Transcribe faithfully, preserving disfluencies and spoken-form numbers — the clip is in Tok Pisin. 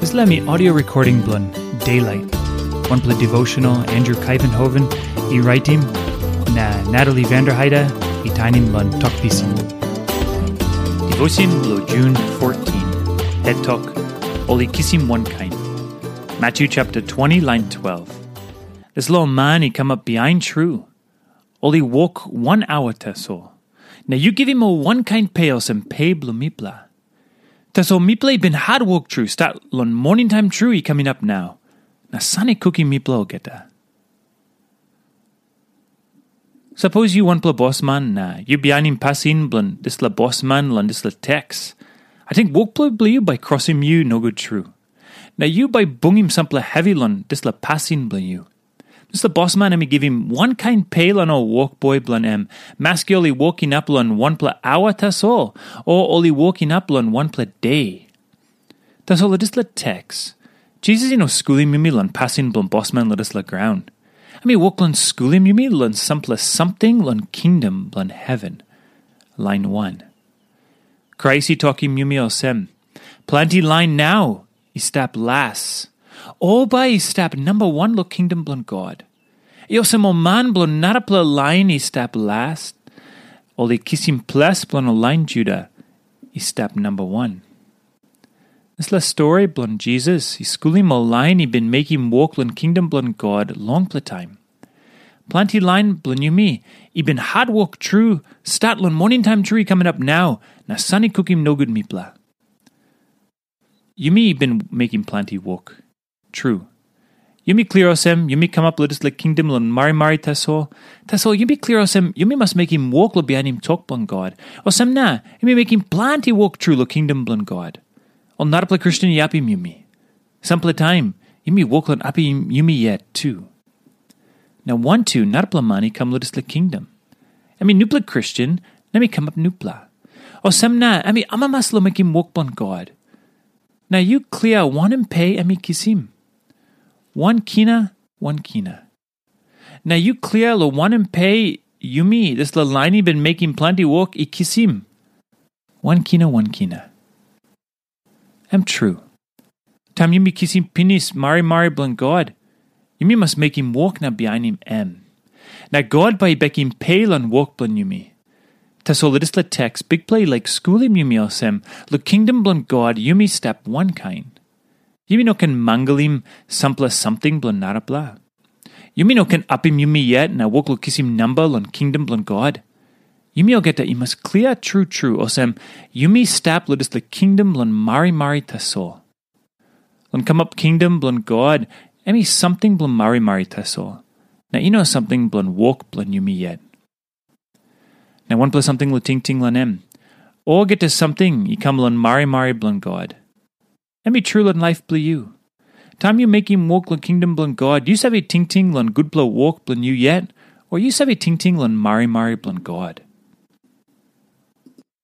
Dispela mi audio recording bilong Daylight, wanpela devotional Andrew Kaivenhoven i raitim, na Natalie Vanderheide i tainim long Tok Pisin. Devotion bilong Jun fourteen, het tok, ol i kisim wankain. Matthew chapter twenty, line twelve. Dispela man i kamap bihain tru. Ol i wok wan aua tasol. Na yu givim ol wankain pe olsem pe bilong mipela. Tasol mipela i bin hatwok tru stat long moning taim tru i kam inap nau, na san i kukim mipela olgeta. Sapos yu wanpela bosman na yu bihainim pasin bilong dispela bosman long dispela teks, ating wokpela bilong yu bai krosim yu nogut tru. Na yu bai bungim sampela hevi long dispela pasin bilong yu. Dispela bosman em i givim wankain pe long ol wokboi bilong em, maski ol i wok inap long wanpela aua tasol, o ol i wok inap long wanpela de. Tasol long dispela teks, Jisas i no skulim yumi long pasin bilong bosman long dispela graun. Em i wok long skulim yumi long sampela samting long kingdom bilong heven. Lain wan. Krais i tokim yumi olsem, planti lain nau i stap las. Ol bai i stap namba wan long kingdom bilong God. I olsem ol man bilong narapela lain i stap las, ol i kisim ples bilong ol lain Juda i stap namba wan. Dispela stori bilong Jisas i skulim ol lain i bin mekim wok long kingdom bilong God longpela taim. Planti lain bilong yumi i bin hatwok tru, stat long moning taim tru i kam inap nau, na san i kukim nogut mipela. Yumi i bin mekim planti wok. Tru. Yumi klia olsem, yumi kamap long dispela kingdom long marimari tasol. Tasol yumi klia olsem, yumi mas mekim wok long bihainim tok bilong God. Olsem na, yumi mekim planti wok tru long kingdom bilong God. Ol narapela Kristen i apim yumi. Sampela taim, yumi wok long apim yumi yet tu. Na wantu narapela man i kam long dispela kingdom. Em i nupela Kristen, na em i kamap nupela. Olsem na, em i amamas long mekim wok bilong God. Na yu klia wanem pe em i kisim. Wan kina, wan kina. Na yu klia long wanem pe yumi, dispela lain i bin mekim planti wok, i kisim. Wan kina, wan kina. Em tru. Taim yumi kisim pinis marimari bilong God, yumi mas mekim wok na bihainim em. Na God bai i bekim pe long wok bilong yumi. Tasol long dispela teks, Bikpela i laik skulim yumi olsem, long kingdom bilong God yumi stap wankain. Yumi no ken mangalim sampela samting bilong narapela. Yumi no ken apim yumi yet na wok long kisim namba long kingdom bilong God. Yumi olgeta i mas klia tru tru olsem, yumi stap long dispela kingdom bilong marimari tasol. Long kamap kingdom bilong God, em i samting bilong marimari tasol, na i no samting bilong wok bilong yumi yet. Na wanpela samting long tingting long em. Olgeta samting i kam long marimari bilong God. Em i tru long laip bilong yu. Taim yu mekim wok long kingdom bilong God, yu save tingting long gutpela wok bilong yu yet, o yu save tingting long marimari bilong God?